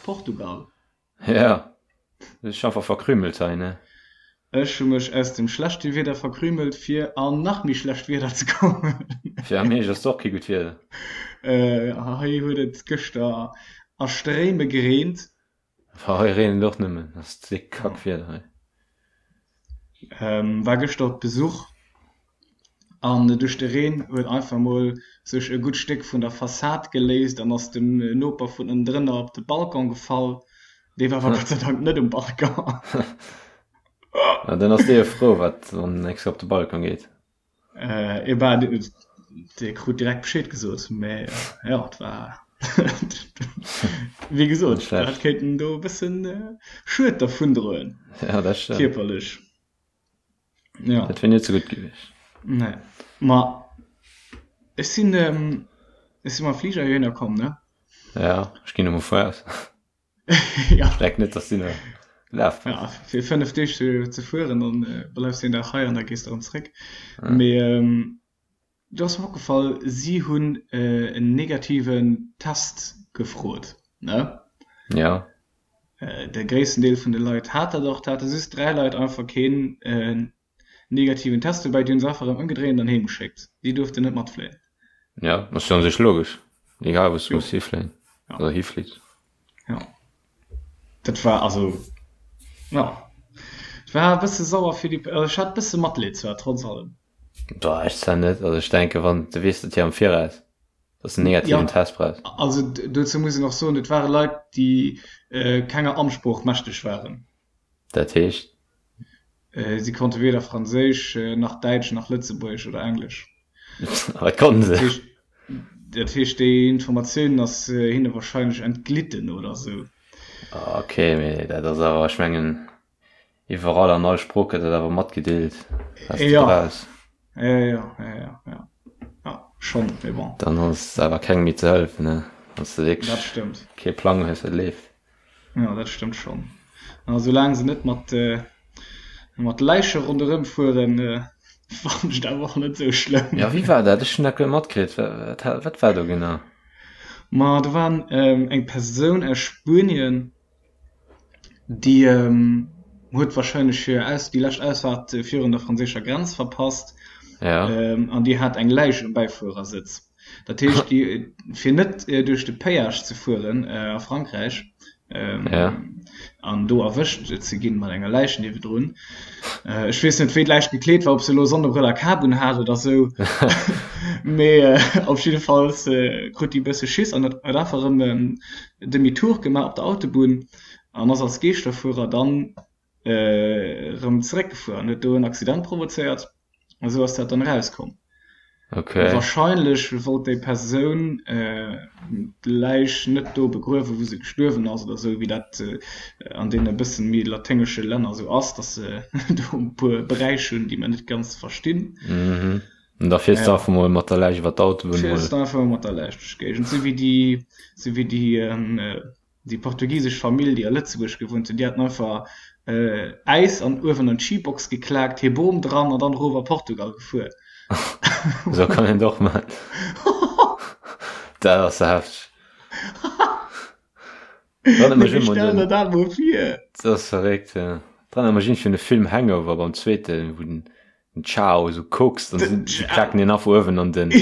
Portugal. Ja, du hues dech einfach verkrümelt hei, ne? Ech hu mech aus dem schlechte Wieder verkrümelt, fir an nach méi schlecht Wieder ze kommen. Fir am Hierscht ass et och kee gutt Wieder. Hei huet et gëschter a Stréime gereent. Hei reent et och nëmmen, ass déck Kackwieder hei. War gëschter op Besuch an duerch de Reen huet einfach mol sech e gutt Stéck vun der Fassad geléist an ass dem Noper vun ënnendrënner op de Balcon gefall. Dee war awer Gott sei Dank net um Balcon. Na dann ass dee jo frou, wat wann en extra op de Balcon geet. Äh, bah, dee krut direkt Bescheed gesot, mä jo, et war wéi gesot, dat kéint en do e bëssen Schued dervundroen. Ja, dat stëmmt. Kierperlech. Ja. Dat wier net sou gutt gewiescht. Nee. Ma ech sinn, ech si mam Fliger heihinner komm, ne? Ja, ech ginn emol vu aus. ja. Ech denken net, dass du nach gelaf bass. Ja, fir 5 Deeg ze, ze fueren, dann äh, bleifs du een Dag hei an da gees de erëm zréck. Ja. Mee ähm, do ass mer opgefall, si hunn äh, en negativen Test gefrot, ne? Ja. Äh, de gréissten Deel vun de Leit hat dat och. Et hate just 3 Leit einfach keen äh, negativen Test dobäi, déi hunn se einfach erëm ëmgedréint an heem geschéckt. Déi duerften net matfléien. Ja, ass jo an sech logesch. Egal wou s du muss hifléien oder hiflitt. Jo. Dat war also, jo, et war e bësse sauer fir déi, also ech hat e bësse Matleed zwar, trotz allem. Boah, ech zwar net. Also ech denke wann du weess dat jo am Viraus, dass de negativen Ja, Test brauchs. also dozou muss een och soen, et ware Leit, déi kenger Amtssprooch mächteg waren. Dat heescht? Si konnte weder Franséisch, nach Däitsch, nach Lëtzebuergesch oder Englesch. Wat konnten se? Dat heescht, déi Informatioun ass hinne warscheinlech entglitten oder sou. Ok, mee dat ass awer, ech mengen, iwwerall an all Sprooch gëtt dat awer matgedeelt, wat s de brauchs. Jo, jo, jo, jo, jo, jo, schonn, mee bon. Dann ass awer kengem méi ze hëllefen, ne, wann s de wierklech kee Plang hues, wat leeft. Jo, dat stëmmt schonn. A soulaang se net mat, mat Läiche ronderëm fueren, fannen ech et awer och net esou schlëmm. Jo, wéi war dat? Ech hunn dat guer net matkritt. Wat, wat war do genau? Ma do war eng Persoun aus Spuenien, déi huet warscheinlech hir Aus, déi lescht Ausfaart virun der franséischer Grenz verpasst. Ja. An déi hat eng Läich um Bäifuerersëtz. Dat heescht, déi, fir net duerch de Péage ze fueren a Frankräich an do erwëscht ze ginn mat enger Läich niewedrun, ech weess net, wéi d'Läich gekleet war, ob se elo Sonnebrëll a Kap un hat oder sou, mee op jiddefalls krut déi e bësse Schiss an huet einfach erëm en Demi-tour gemaach op der Autobunn an ass als Geeschterfuerer dann erëm zeréckgefuer an huet do en Accident provozéiert a sou ass dat dann erauskomm. Okay. Wahrscheinlech wollt déi Persoun d'Läich net do begruewen, wou se gestuerwen ass oder sou, wéi dat an deene bësse méi laténgesche Länner sou ass, dass se do e puer Bräich hunn, déi mer net ganz verstinn. Mhm. An da fiers de einfach mol mat der Läich iwwer d'Autobunn mol. Fiers de einfach mol mat der Läich duerch d'Géigend, sou wéi déi, sou wéi déi Déi portugisesch Famill, déi a Lëtzebuerg gewunnt hunn, déi haten einfach Äis an uewen an d'Schibox geklaakt, hir Bom dran an dann erof a Portugal gefuer. Esou kann een et och man. Dat ass hefteg. Mee wéi stell der dat mol vir? Dat ass verréckt, jo. Dat erënnert mech iergendwéi un de Film Hangover beim zweeten, wou den den Ciao esou kokst an si klaken deen einfach uewen an den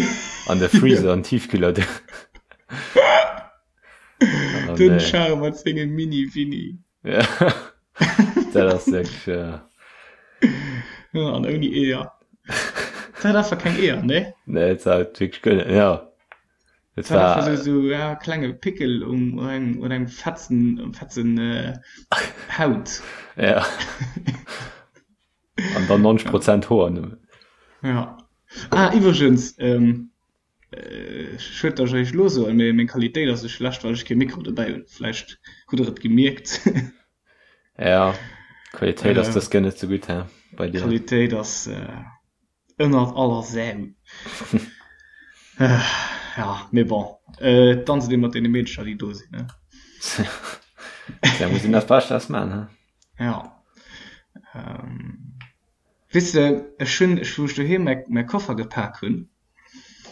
an de Freezer, an den Tiefkühler. Oh, Den nee. Char mat sengem Mini-Winni. Ja. Dat ass wirklich, ja. Ja, an ouni Eeër. Dat hat einfach keng Eeër, ne? Nee, et war wirklich guer net, ja. Et war einfach so, so ja, klenge Pickel um, um engem, un engem Fetzen, um Fetzen äh, Haut. Ja. An dann 90 Prozent Hoer nëmmen. Ja. Ah, iwwregens, ähm, Schued dass ech eréischt elo soen, mee meng Qualitéit ass esou schlecht well ech kee Mikro dobäi hunn. Vläicht hutt der et gemierkt. Ja, d'Qualitéit ass dës Kéier net sou gutt, he, bei dir. D'Qualitéit ass ënnert aller Sau. Ja, mee bon, danzt ee mat deene Meedercher déi do sinn, ne? Da muss een dat Bescht draus maachen, he? Ja. Weess de, ech hunn, wou ech doheem mäi Koffer gepak hunn,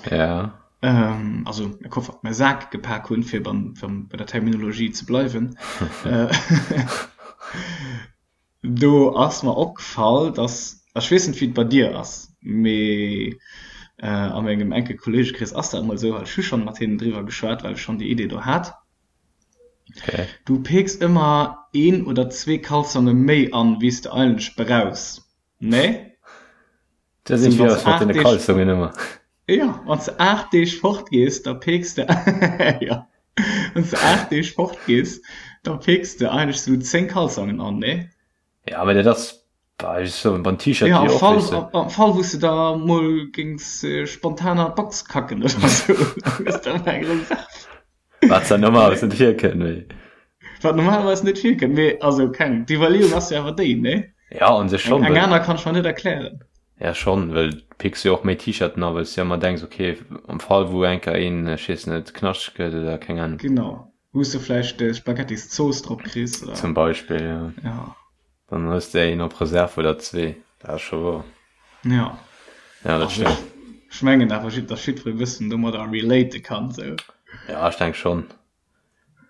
Ja. Also e Koffer, mä Sak gepak hunn, fir beim, bei der Terminologie ze bleiwen. Do ass mer opgefall, dass, ech weess net wéi et bei dir ass, mee a mengem enke Kolleegekrees ass dat emol esou, well ech hu schonn mat hinnen driwwer geschwat, well ech schonn déi Idee do hat, du peeks ëmmer een oder zwee Kalzonge méi an, wéi s de eigentlech brauchs, nee? Da sinn ech wieder mat den Kalzongen ëmmer. Jo, wann s de 8 Deeg fort gees, da peeks de, jo, wann s de 8 Deeg fort gees, da peeks de eigentlech sou 10 Kalzongen an, nee? Ja, mä dat ass, bah, ech soen, beim T-Shirt jo, och, weess de. Am Fall, wou s de da mol géings spontan an d'Box kacken oder sou, da hues de ëmmer eng Reserve. Wat zwar normalerweis net virkënnt, mee. Wat normalerweis net virkënnt, mee also keng, d'Iwwerleeung ass jo awer déi, nee? Ja, un sech schonn. Eng aner kann ech mer net erklären. Ja, schonn, well du picks jo och méi T-Shirten a well s du jo ëmmer denks, okay, am Fall wou eng Kéier een, ech weess net, knaschteg gëtt oder keng Ahnung. Genau, wou s du vläicht Spaghettiszooss drop kriss oder. Zum Beispill, ja. Ja. Dann hues de een op Reserve oder zwee, dat ass scho wouer. Ja. Ja, dat stëmmt. Ech mengen awer, datt jiddweree e bëssen domadder relate kann, sou. Ja, ech denk schonn.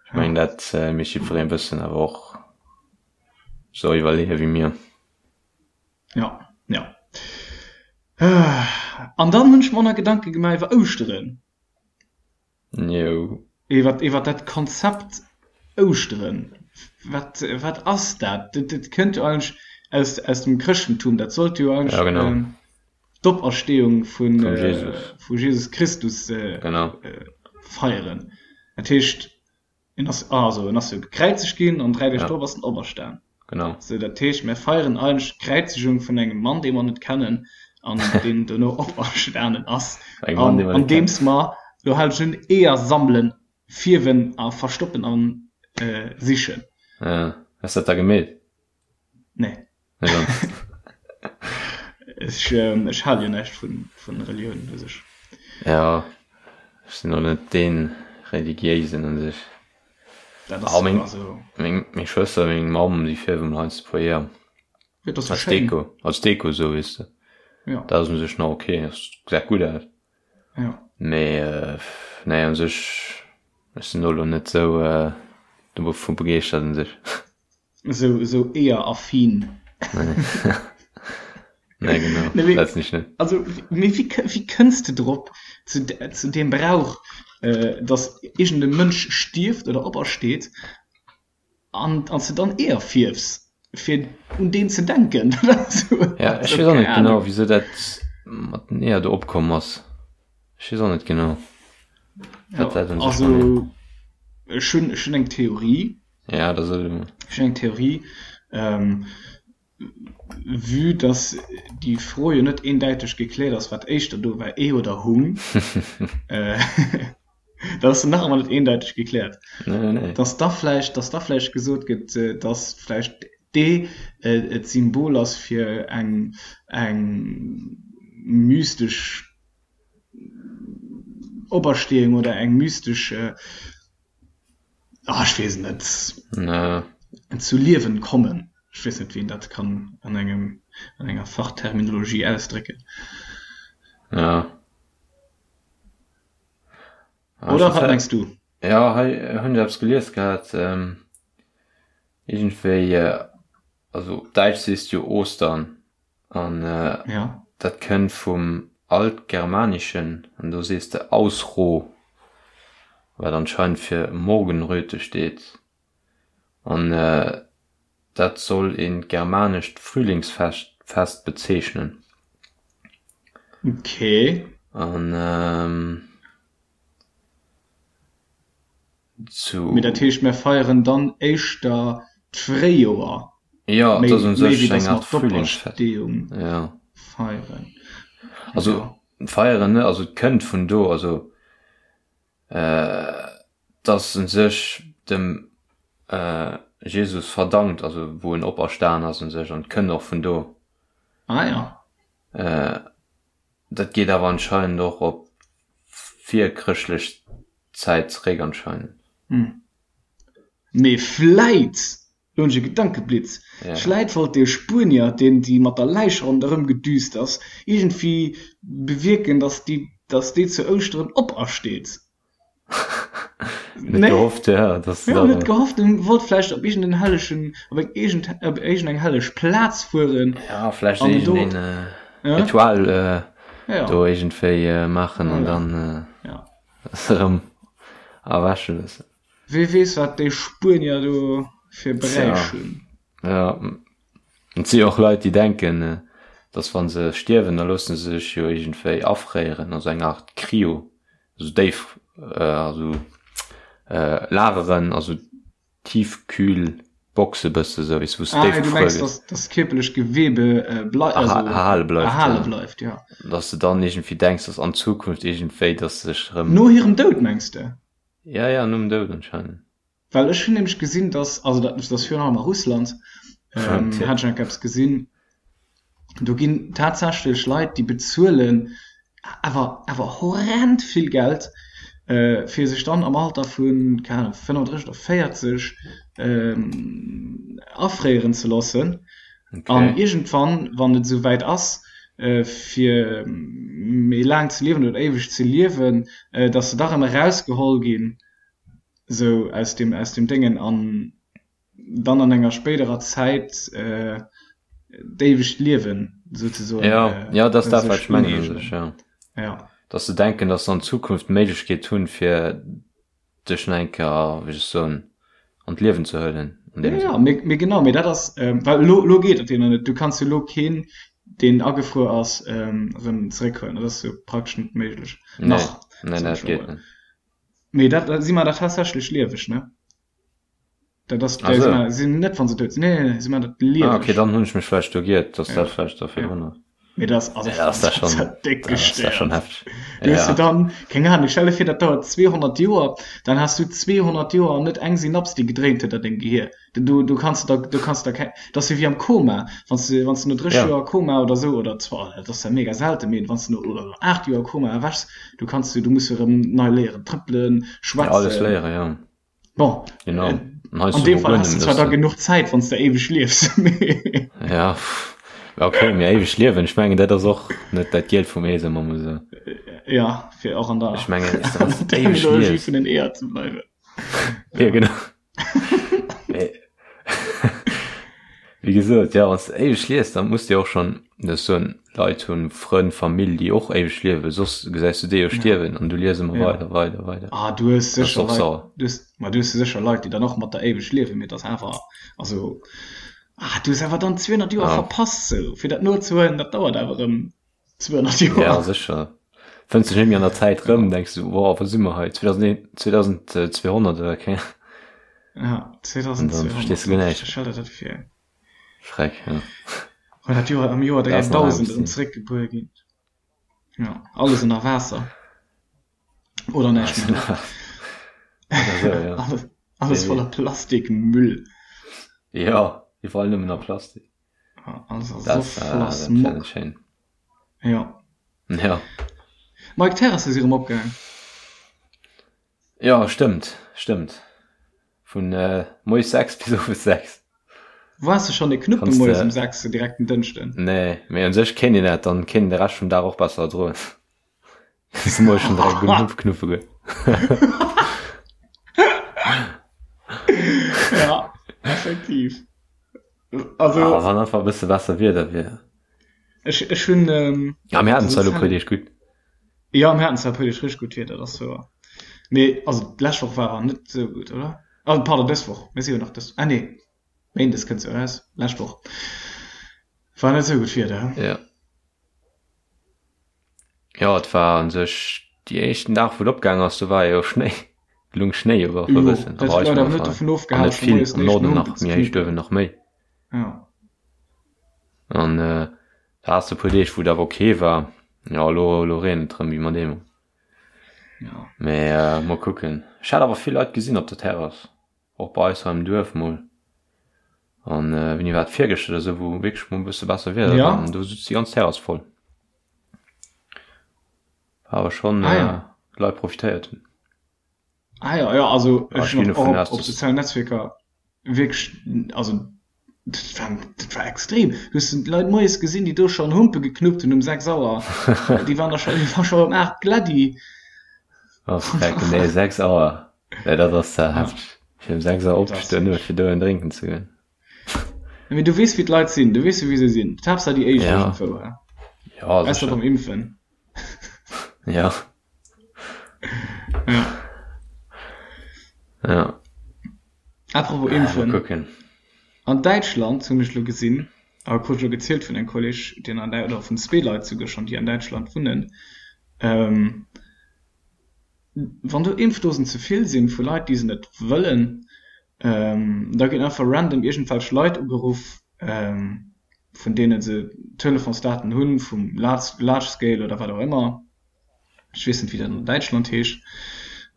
Ech mengen, dat mécht jiddweree e bëssen awer och sou iwwerleeë wéi mir. Ja, ja. An dann hunn ech mer och nach Gedanke gemaach iwwer Ouschteren. Jo. Iwwer, iwwer dat Konzept Ouschteren. Wat, wat ass dat? Dat, dat kënnt jo eigentlech aus, aus dem Chrëschtentum. Dat sollt jo eigentlech ja, genau. ähm, d'Operstehung vun, vum Jesus. Äh, vu Jesus Christus äh, genau. äh, feieren. Dat heescht, En ass, also en ass jo gekräizegt ginn an 3 Deeg drop ass en operstan. Genau. Sou, dat heescht, mir feieren eigentlech d'Kräizegung vun engem Mann, dee mer net kennen an deen dono operstanen ass, Engem Mann, dee mer net kennen. andeems mer, lo halen ech un, Eeër sammelen, fierwen a verstoppen a sichen. Ja. Hues dat da gemeet? Nee. Nee, dann. Ech, ech hale jo näischt vun, vun Relioun u sech. Ja, ech sinn och net dee Religiéisen u sech. Dat ass meng, also. Meng, meng Schwëster, meng Mamm, déi fierwen heiansdo e puer Eeër. Ja, dat ass jo Als schéin. Deko, als Deko esou, weess de. Ja. Dat ass u sech nach ok, dat gesäit gutt aus. Ja. Mee, nee, u sech, ech sinn do elo net esou dovu begeeschtert u sech. Esou, esou Eeër-affin. Nee, genau. Nee, mee, Dat sinn ech net. also, mee wéi, wéi kënns de drop, zu, zu deem Brauch, äh, dass iergend e Mënsch stierft oder opersteet an, an s de dann Eeër fierfs, fir un deen ze denken? Dat ass esou, Ja, ech also, weess och keng net genau, Ahnung. wisou dat mat den Eeër do opkomm ass. Ech weess och net genau, Ja, wat dat un sech mat also, ech hunn, ech hunn eng Theorie. Ja, da soll du. Ech hunn eng Theorie. Ähm, vue dass déi Fro jo net eendäiteg gekläert ass, wat éischter do war, Ee oder Hung, äh, dat ass nach ëmmer net eendäiteg gekläert, Nee, nee, nee. dass da vläicht, dass da vläicht gesot gëtt, dass vläicht d'Ee d'Symbol ass fir eng, eng mystesch Operstehung oder eng mystesch, Ah, ech weess et net. Nee. Zu Liewen kommen. Ech weess net, wéi een dat kann an engem, an enger Fachterminologie ausdrécken. Ja. Ah, Oder wat mengs du? Ja, hei hunn ech eppes gelies gehat. Ähm, iergendwéi, also op Däitsch sees du jo Ostern. An ja. dat kënnt vum Altgermanischen, an do sees de Ausroh, wat anscheinend fir Morgenröte steet. An dat soll een germanescht Frühlingsfest Fest bezeechnen. Okay. An zu. Mee dat heescht, mär feieren dann éischter d'Fréijoer, Jo, et méi ass un méi sech wéi eng datt mer Art Frühlingsfest. d'Opersteeung Ja. feieren. Also Jo. feieren net, also et kënnt vun do, also et ass un sech dem Jesus verdankt, also wou en operstan ass un sech an et kënnt och vun do. Ah ja. Dat geet awer anscheinend och op virchrëschtlech Zäit zeréck anscheinend. Mee vläit! Lo hunn ech e Gedankeblitz. Vläit wollt dee Spuenier, deen déi mat der Läich ronderëm gedüst ass, iergendwéi bewierken, datt déi, datt déi zu Ouschteren opersteet. Net gehofft, ja, dass ja, net gehofft en wollt vläicht op iergend en hellegen op eng iergend op iergend eng helleg Plaz fueren. Ja, vläicht iergend een äh, Ritual äh, ja. do iergendwéi äh, maachen an dann äh, ja. erëm erwäche loossen. Wee weess wat déi Spuenier do fir Bräich hunn. Ja. Et si och Leit déi denken, dass wann se stierwen, da loosse se sech jo iergendwéi afréieren, also eng Art Cryo, also déif, also lageren, also Tiefkühlboxe bësse sou, weess wou s déif gefruer gëtt. Ah, du mengs, dass d'kierperlech Gewebe erhale bleift, erhale bleift, ja. Dass de dann iergendwéi denks, dass an Zukunft iergendwéi, dass sech erëm. No hirem Doud mengs de? Ja, ja, nom Doud anscheinend. Well ech hunn nämlech gesinn, dass, also dat ass virun allem a Russland, hat ech enk eppes gesinn, do ginn tatsächlech Leit, déi bezuelen awer awer horrend vill Geld, fir sech dann am Alter vu, keng Ahnung, 35 oder 40 afréieren ze loossen. An iergendwann, wann et esou wäit ass, fir méi laang ze liewen oder éiweg ze liewen, dass se da rëm erausgeholl ginn, esou aus dem, aus dem Déngen an dann an enger spéiderer Zäit d'éiwegt Liewen souzesoen. Ja, ja, dat ass dat, wat ech mengen u sech, ja. Ja. Dass se denken, dass se an Zukunft d'Méiglechkeet hunn, fir dech nach eng Kéier, wéi soll ech soen, an d'Liewen ze huelen an deem Sënn. Ja, mee, mee genau, mee dat ass, well elo, elo geet dat jo nach net. Du kanns jo elo keen, deen agefruer ass, erëm zeréckhuelen. Dat ass jo praktesch net méiglech. Nach, nee, nee, dat geet net. Mee dat, si man dat tatsächlech lieweg, ne? Dat ass, ah, so. sinn net wann se dout sinn. Nee, nee, si man dat lieweg. Ah, okay, dann hunn ech mech vläicht do giert, dass ja. dat vläicht da virdrun ass. Mee das, also, ja, das, das, schon, das dick das ist schon heftig. Du ja. dann, keng Ahnung, stell dir vir, dat dauert 200 Joer, dann hast du 200 Joer net eng Synaps, déi gedréint huet an dengem Gehir. Du, du kanns da, du kanns da keng, dat ass jo wéi am Koma, wann s du, wann s du no 30 ja. Joer Koma oder sou, oder zwar, dat ass ja mega selten, mee wann s du no oder 8 Joer Koma erwächs, du kanns du, du muss jo erëm nei léieren, trëppelen, schwätzen. Ja, alles léieren, ja. Bon, genau. Äh, an deem Fall hast du zwar da genuch Zäit, wann s du éiweg liefs. ja, okay, mee éiweg liewen, ech mengen, dat ass och net dat Gielt vum Ee, soe mer mol sou. Ja, fir och an der, ech mengen, Terminologie vun den Eeër ze bleiwen. Ja, genau. Wéi gesot, ja, wann s de éiweg lies, dann muss de och schonn, dat soen Leit hunn, Frënn, Famill, déi och éiweg liewen, soss gesäis du déi jo stierwen an du lies ëmmer weider, weider, weider. Ah, du hues sécher Leit, du hues, ma du hues sécher Leit, déi dann och mat der éiweg liewen, mee et ass awer, also, ah, du hues awer dann 200 Joer verpasst, sou, fir dat nozehuelen, dat dauert awer erëm. 200 Joer. Ja, sécher. Fënns dech net méi an der Zäit rëm, denks du, wow, wou si mer hei? 2200 oder keng Ja, 2200. Dann verstees du guer näischt. Stell der dat vir. Schreck, ja. Well dat Joer am Joer 3000 erëm zeréckgebuer ginn. Ja, alles ënner Waasser. Oder näischt méi do. Oder sou, ja. Alles, alles voller Plastikmüll. Ja, iwwerall nëmmen nach Plastik. Also das, so äh, das schön. Ja. Ja. Mike Terrasse si rëm opgaang. Ja, stëmmt, stëmmt. Vun äh, moies 6 bis owes 6. Waars du schon e Knuppe moies um 6 direkt den Dënschden? Nee, mee un sech kéint een dat, dann kéint een de Rescht vum Dag och besser erdroen. Dass moies schon direkt genuch Knuppe gëtt. Ja, effektiv. Also, ah, wann einfach e bësse besser Wieder wier. Ech, ech hunn. Ähm, ja, mir haten zwar lo puer Deeg gutt. Ja, mir haten zwar puer Deeg richtig gutt Wieder, dat ass wouer. Mee, also d'lescht Woch war net sou gutt, oder? Also, pardon, dës Woch. Mir si jo nach dës. Ah, nee. Méindes kënnt se eraus. Lescht Woch war net sou gutt Wieder, he? Ja. Jo, et war un sech déi éischten Dag wou et opgaang ass, do war jo Schnéi, et lung Schnéi iwwer e bëssen, a bei eis war net dovun an net vill, am Norden nach méi héich duerwen nach méi. An da has de e puer Deeg wou et awer ok war, jo elo elo reent et erëm wéi mat eemol. Mee mol kucken, ech hat awer vill Leit gesinn op der Terrass. Och bei eis hei am Duerf mol. An wéini war et, virgëschter oder sou, wou wierklech mol e bësse besser Wieder war an do sutz déi ganz Terrass voll. War awer schonn, ah, ja. Leit profitéiert hunn. Ah ja, ja, also ech hunn och op, op sozialen Netzwierker. Wierklech, also dat war, dat war extrem. Du hues d'Leit moies gesinn, déi do schonn Humpe geknuppt hunn um 6 Auer. Déi waren da scho, déi war scho um 8 gladdi. Oh, freck, nee, 6 Auer. Nee, dat ass ze hefteg. Fir um 6 Auer opzestoen, nëmme fir do en drénken ze goen. Mee du weess, wéi d'Leit sinn. Du weess jo, wéi se sinn. D'Haaptsaach déi éischt Ja. iergendwou, hä? Ja, Ausser sécher. beim Impfen. Ja. Ja. Ja. Apropos Äh, mal Impfen. kucken. An Däitschland hunn ech lo gesinn, a krut ech lo gezielt vun engem Kolleg, deen an Däi-, oder vun zwee Leit souguer schonn, déi an Däitschland wunnen, ähm, wann do Impfdosen ze vill sinn vu Leit, déi se net wëllen, ähm, da ginn einfach random iergendwelch Leit ugeruff, ähm, vun deene se Telefonsdaten hunn, vum Large, Large Scale oder wat och ëmmer. Ech weess net, wéi dat an Däitschland heescht.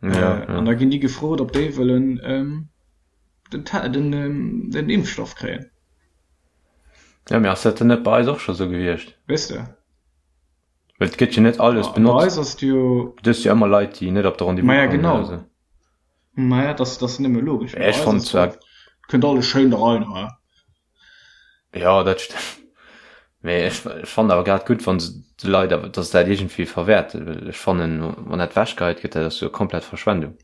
Ja, ja. An da ginn déi gefrot, ob déi wëllen den, den, den Impfstoff kréien. Ja, mee ass dat dann net bei eis och scho sou gewiescht? Weess de? Well et gëtt jo net alles benotzt. Bei eis ass et jo. Du hues jo ëmmer Leit, déi net op de Rendez-vous Maja, kommen genau. oder sou. Maja, dat ass nëmme logesch. Ech fonnt zwar. Kënnt alles schéin da rein, he? Jo, dat stëmmt. Mee ech fannen awer grad gutt, wann se de Leit awer, datt se dat iergendwéi verwäerten, well ech fannen, wann dat wechgeheit gëtt, dat ass jo komplett Verschwendung.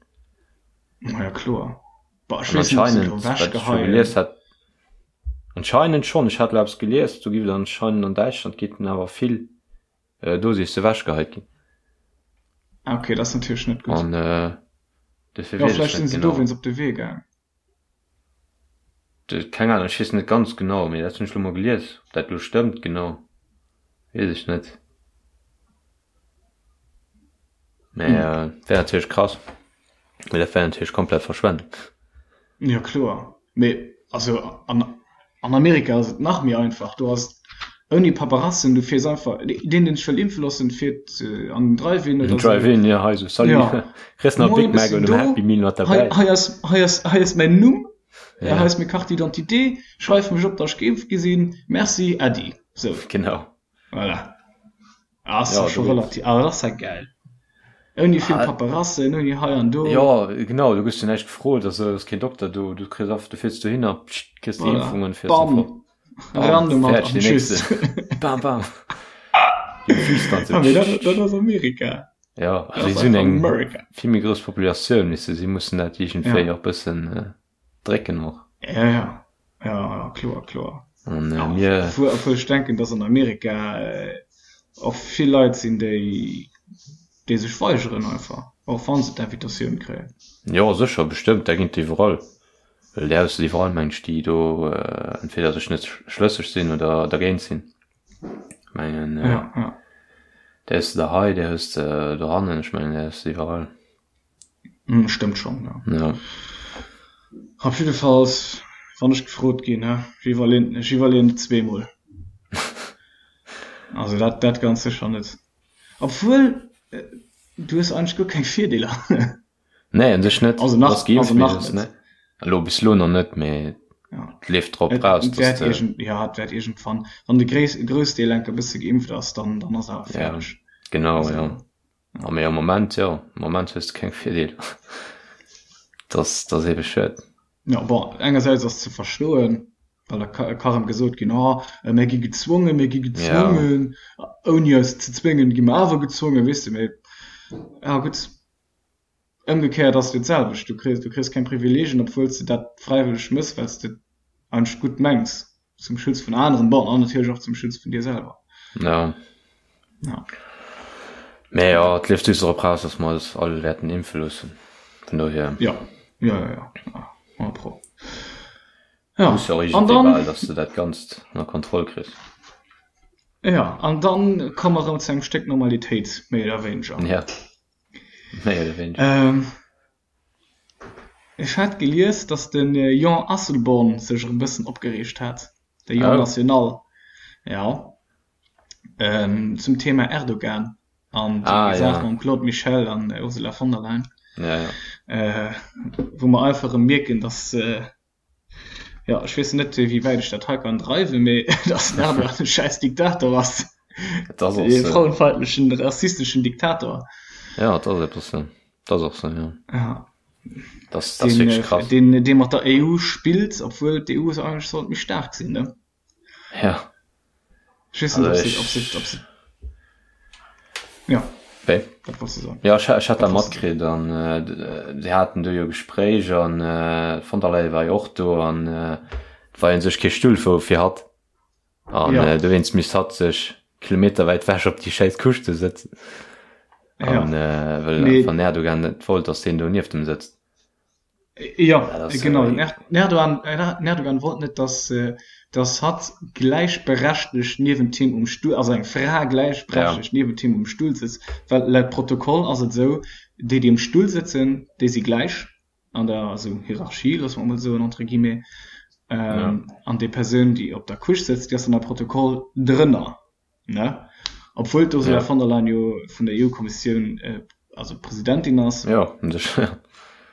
Ma ja, kloer. Bah, ech An weess net, ob se et anscheinend, elo wat ech scho wechgeheien. gelies hat, anscheinend schonn, ech hat elo eppes gelies, do giff et anscheinend an Däitschland geet den awer vill Dosisse wechgeheit ginn. Ah, okay, dat ass natierlech net gutt. An dofir Jo, weess ech vläicht net sinn se genau. dowéinst op de Wee gaang. Keng Ahnung, ech weess net ganz genau, mee dat hunn ech lo mol gelies. Ob dat lo stëmmt genau, weess ech net. Mee wär natierlech krass. Mee dat wär natierlech komplett Verschwendung. Jo kloer, mee also an an Amerika ass et nach méi einfach. Do ass et ouni Paperassen, du fiers einfach, deen deen sech wëll impfe loossen, fiert an den Drive-In oder sou. Drive-In, jo, hei sou, salut, Ja. kriss nach e Moien, Big ech Mac sinn oder do, en Happy Meal mat hei derbäi. hei ass hei ass hei ass mäin Numm, Ja. hei ass meng Carte d'identité, schreif mech op, datt ech geimpft gi sinn, merci, äddi. Sou. Genau. Voilà. Ass Ja, ja scho do geht's. relativ, awer dat ass ja gäil. Ouni vill Ah, Paperassen, ouni hei an do. Jo, genau, du gëss jo näischt gefrot, also ass keen Dokter do, du kriss einfach, du fiers dohinner, psscht, kriss déi Voilà. Impfung an fiers dann Bam. fort. Bam, Ran domat fäerdeg, an deen tschüss. nächste. Bam, bam. Déi Füß dann sou. Ah, mee dat, dat ass Amerika. Ja, Dat also ass si hunn einfach eng America. vill méi grouss Populatioun, weess de, si mussen dat iergendwéi Ja. och bëssen drécken och. Ja, ja. Ja, ja, kloer, kloer. An Ja, mir. obwuel, obwuel ech denken, dass an Amerika och vill Leit sinn, déi, déi sech weigeren einfach, och wa se d'Invitatioun kréien. Jo, sécher, bestëmmt, dat ginn et iwwerall. Well déi hues de iwwerall, meng ech, déi do entweder sech net schlësseg sinn oder dergéint sinn. Ech mengen, Ja, ja. déi hues de der hei, déi hues de dohannen, ech mengen, déi hues de iwwerall. Hm, stëmmt schon, ja. Ja. Op jiddefalls, wann ech gefrot ginn, he, ech iwwerleen, ech iwwerleen et zweemol. Also dat, dat ganz sécher net. Obwuel, du hues eigentlech guer keng Virdeeler. Nee, un sech net. Also nach, Bass geimpft, also mee nach du hues, net. ne. Elo, bis elo nach net, mee Ja. et leeft drop Et raus, dass wäert de. iergend, ja, et wäert iergendwann, wann de Gréis, Groussdeel enker e bësse geimpft ass, dann, dann ass awer Ja, fäerdeg. genau, Also. ja. A mee am Moment, jo, am Moment hues de keng Virdeeler. Dat ass eebe schued. Jo, bon, engersäits ass ze verstoen, well da ka erëm gesot ginn, oh, mir gi gezwongen, mir gi gezwongen, ouni eis ze zwéngen, gi mer awer gezwongen, weess de. Mee ja gutt, ëmgekéiert ass et jo d'selwecht, du kriss, du kriss keng Privileegien, obwuel s de dat fräiwëlleg méchs, well s de et eigentlech gutt mengs. Zum Schutz vun aneren, bon, an natierlech och zum Schutz vun dir selwer. Ja. Ja. Mee jo, et leeft just drop raus, dass mer eis all wäerten impfe loossen. Vun dohier. Ja, ja, ja, ja. Ja, 100 pro. Ja, Muss jo och an iergendwéi dann. bal, dass de dat Ganzt ënner Kontroll kriss. Ja, an dann komme mer erëm zu engem Stéck Normalitéit, méi oder wéineger. Ja, méi oder wéineger. Ähm. Ech hat gelies, datt de Jean Asselborn sech erëm bëssen opgereegt hat, de Jean Oh. National, jo, zum Thema Erdogan an déi Ah, Saach ja. mam Claude Michel an Ursula von der Leyen, Ja, ja. wou mer einfach erëm mierken, datt, jo, ech weess net, wéi wäit ech dat hei kann dreiwen, mee datt den Erdogan e schäiss Diktator ass, Et ass och e sou. frauenfeindlechen, rassisteschen Diktator. Ja, et ass eppes sou. Dat ass och sou, jo. Ja. Das, das den, wirklich krass. Den, dee mat der EU spillt, obwuel d'EU eigentlech sollt méi staark sinn, ne? Ja. Ech weess net, ob se, ob se, ob se Ja. Wéi? Wat wollts du soen? Ja, ech, ech hat dat matkritt an äh, se haten do jo Gespréich an äh, von der Leyen war jo och do an äh, war jo sech kee Stull fir, fir hatt. An ja. äh, dowéinst misst hatt sech kilometerwäit wech op déi schäiss Couche do sëtzen. An ja. äh, well nee. van Erdogan net wollt, dass deen do nieft em sëtzt. Ja, genau. Den Erdogan, den Erdogan wollt net, dass, äh, dass hatt gläichberechtegt niewent him um Stuhl, also eng Fra gläichberechtegt ja. niewent him um Stuhl sëtzt, well laut Protokoll ass et esou, déi, déi um Stuhl sëtzen, déi si gläich an der also Hierarchie, loosse mer emol soen, entre guillemets, ähm, ja. an déi Persoun, déi op der Couche sëtzt, déi ass an der Protokoll drënner. Ne? Obwuel d'Ursula ja. von der Leyen jo vun der EU-Kommissioun äh, also Presidentin ass. Ja, ja.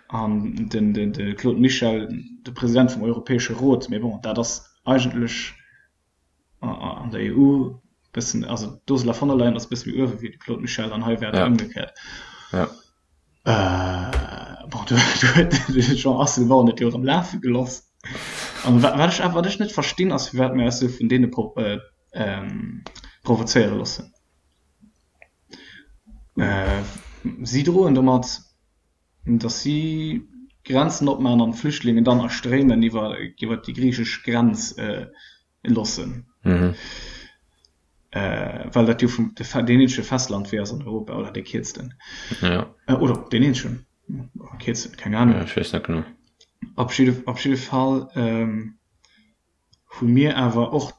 An den, den, de Claude Michel, de President vum Europäesche Rot, mee bon, dat ass eigentlech an der EU bëssen, also d'Ursula von der Leyen ass bësse méi uewe wéi de Claude Michel an hei wär et ja. ëmgekéiert. Ja. Äh, bon, du, du huet de Jean Asselborn et jo erëm lafe geloss. An wat, wat ech awer, wat ech net verstinn, ass firwat mir eis sou vun deene pro, äh, ähm, provozéiere loossen. Äh, si droen domat, datt si Grenzen opmaachen an d'Flüchtlingen dann a Stréimen iwwer, iwwer déi griichesch Grenz äh, loossen. Mhm. Äh, well dat jo vum deen eenzege Festlandwee ass an Europa oder dee kierzten. Ja. Äh, oder deen eenzegen kierzesten, keng Ahnung. Ja, ech weess net genau. Op jidde, op jidde Fall ähm, hu mir awer och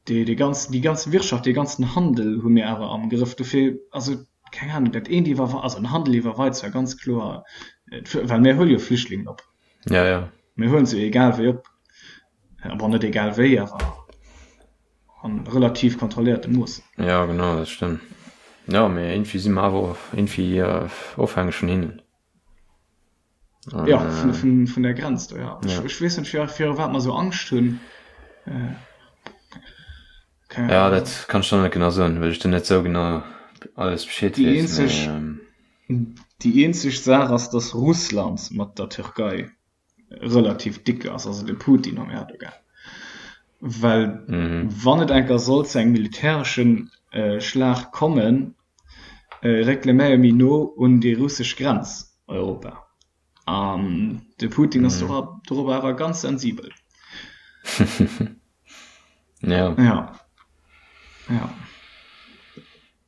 déi, déi ganz, déi ganz Wirtschaft, dee ganzen Handel hu mir awer am Grëff. Dofir, also keng Ahnung, dat eent iwwer, also den Handel iwwerweit zwar ganz kloer, äh, well mir huele jo Flüchtlingen op. Ja, ja. Mir huelen se egal wéi op. Bon, net egal wéi, awer an relativ kontrolléierte Moossen. Ja, genau, dat stëmmt. Ja, mee irgendwie si mer awer irgendwie ofhängeg vun hinnen. An, ja, vun, vun, vun der Grenz do, ja. ja. Ech, ech weess net, fir, fir wat mer sou Angscht hunn. Äh, ja, dat kann ech dann net genau soen, well ech do net sou genau alles Bescheed weess. Déi eenzeg, ähm, déi eenzeg Saach ass, dass Russland mat der Türkei relativ dick ass, also de Putin am Erdogan. Well mhm. wann et enker soll zu engem militäreschen äh, Schlag kommen, äh, réckele mir méi no un déi russesch Grenz Europa. An de Putin ass mhm. dorobber awer ganz sensibel. Ja. Ja. Ja.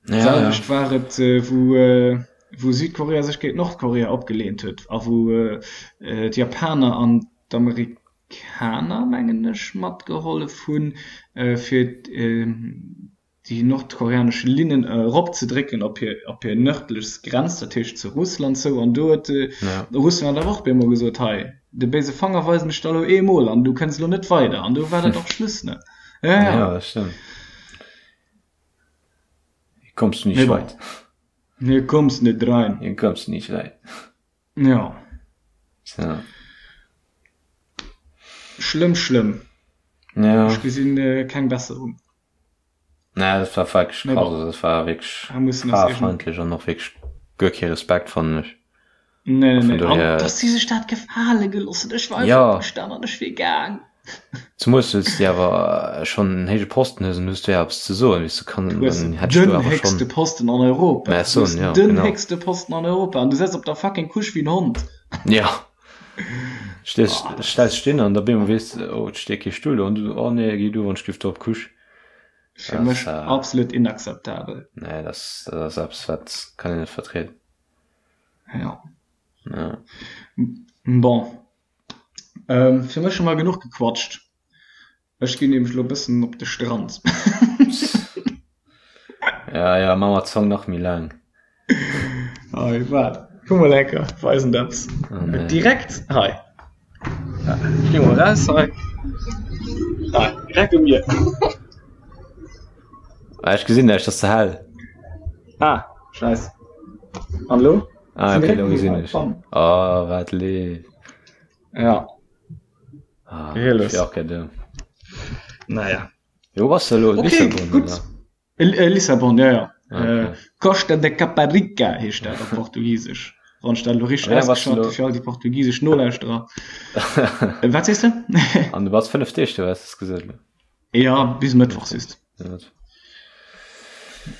Ja, Selwecht ja. war et äh, wou, äh, wou Südkorea sech géint Nordkorea opgeleent huet a wou äh, äh, d'Japaner an d'Amerikaner mengen ech matgehollef hunn äh, fir äh, déi nordkoreanesch Linnen eropzedrécken op hir op hir nërdlechst Grenz, dat heescht zu Russland zou. An do huet äh, ja. Russland awer och bemol gesot, hei de béise Fanger weisen ech der elo eemol an du kënns elo net weider. An do war dat och Schluss ne. Ja, ja. ja dat stëmmt. Hier kommst du nicht weit. Hier kommst net rein. Hier kommst du nicht weit. Ja. So. Schlëmm, schlëmm. Ja. Ech gesinn äh, keng Besserung. Nee, dat war wierklech krass. Also, dat war wierklech frauefeindlech an och wierklech guer kee Respekt, fannen ech. Nee, nee, nee. An dass si sech dat gefale gelooss hunn. Ech war einfach opgestan an ech wier gaang. Zemools well s de awer schonn en héije Posten hues an du hues do jo eppes ze soen, weess du, kann, Du hues dann hätt ech do den awer héchste schonn Posten an Europa. Mä Du soen, hues jo, den genau. héchste Posten an Europa an du setz op der fucking Couche wéi en Hond. Ja. Stees, Oh, dat stells ass stinn an da bemol weess de, oh, et steet kee Stull do an du, oh nee, géi du wann ech giff do op d'Couche. fir mech absolut inakzeptabel. Nee, dat ass, dat ass eppes, wat kann een net vertrieden. Ja. Ja. Bon. Ähm, fir mech hu mer genuch gequatscht. Ech ginn nämlech elo e bëssen op de Strand. Ja, ja, maa mer d'Zong nach méi laang. Hei, waart, kuck mol enker, weisen der eppes. Oh nee. Direkt hei. Ech gi mol raus hei. Hei, direkt um Mier. Ah, ech gesinn näischt, ass ze hell. Ah, scheiss. An elo? Ah, okay, elo gesinn ech. Oh, wat leef. Ja. Ah, ech wier och gär do. Naja. Jo, wou bass de elo? Okay, Lissabon, gutt. oder? Äh, Lissabon, ja, ja. Ah, okay. Äh, Costa de Caparica heescht dat op Portugisesch. Wann ech dat elo richteg ausgeschwat hu fir all déi portugisesch Nolauschterer. Wat sees de? An du bass 5 Deeg do, hues de gesot elo? Ja, bis Mëttwoch siehst.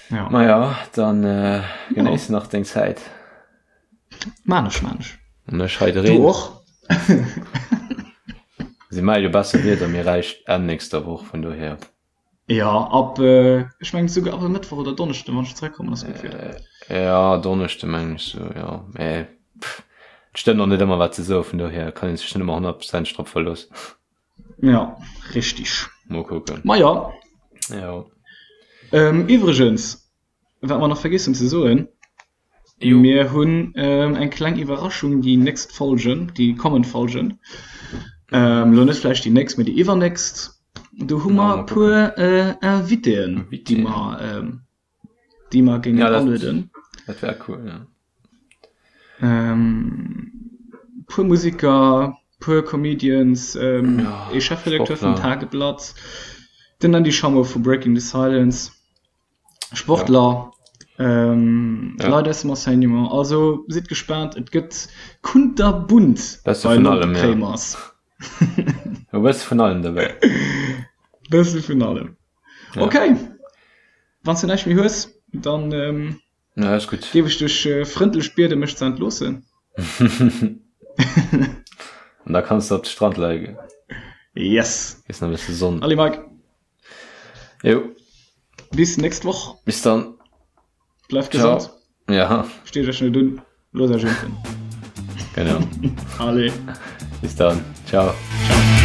Ja. Ma ja, dann äh, genéiss nach deng Zäit. Maan ech, maan ech. An ech hei de Reen. Du och? Si melle jo besser Wieder, mir räicht Enn nächster Woch, vun dohier. Ja, ab, ech mengen souguer ab e Mëttwoch oder Donneschden, wann ech zeréckkommen, ass gutt Wieder. Ja, Donneschde mengen ech sou, jo. Mä pff, et stëmmt och net ëmmer wat se soen, vun dohier kann ee sech net ëmmer honnertprozenteg drop verloossen. Ja, richtig. Mol kucken. Ma ja. Jo. Iwwregens, wat mer nach vergiess hunn ze soen, Mir hunn eng kleng Iwwerraschung déi nächst Folgen, déi kommend Folgen. Elo net vläicht déi nächst, mee déi iwwernächst. Do hu mer e puer Invitéen, déi mer, déi mer géingen alueden. Dat wär cool, jo. E puer Museker, puer Comedians, ee Chefredakteur vum Tageblatt, den Andy Schammo vu Breaking the Silence. Sportler, ja. ähm, ja. Leit aus dem Enseignement. Also sidd gespaant, et gëtt kunterbunt bei vun allem, ja. E bësse vun allem dobäi. Bësse vun allem. Ja. Okay. Wann s du näischt méi hues, dann ähm, Ja, ist gut. Géif ech dech äh, frëndlech bieden, mech ze entloossen. An da kanns du op de Strand leie. Yes. Ist nach e bësse Sonn. Allez, Mike. Jo. Bis nächst Woch. Bis dann. Bleift gesond. Ja. Steet Iech net un, loosst Iech impfen. Genau. Allez. Bis dann. Ciao. Ciao.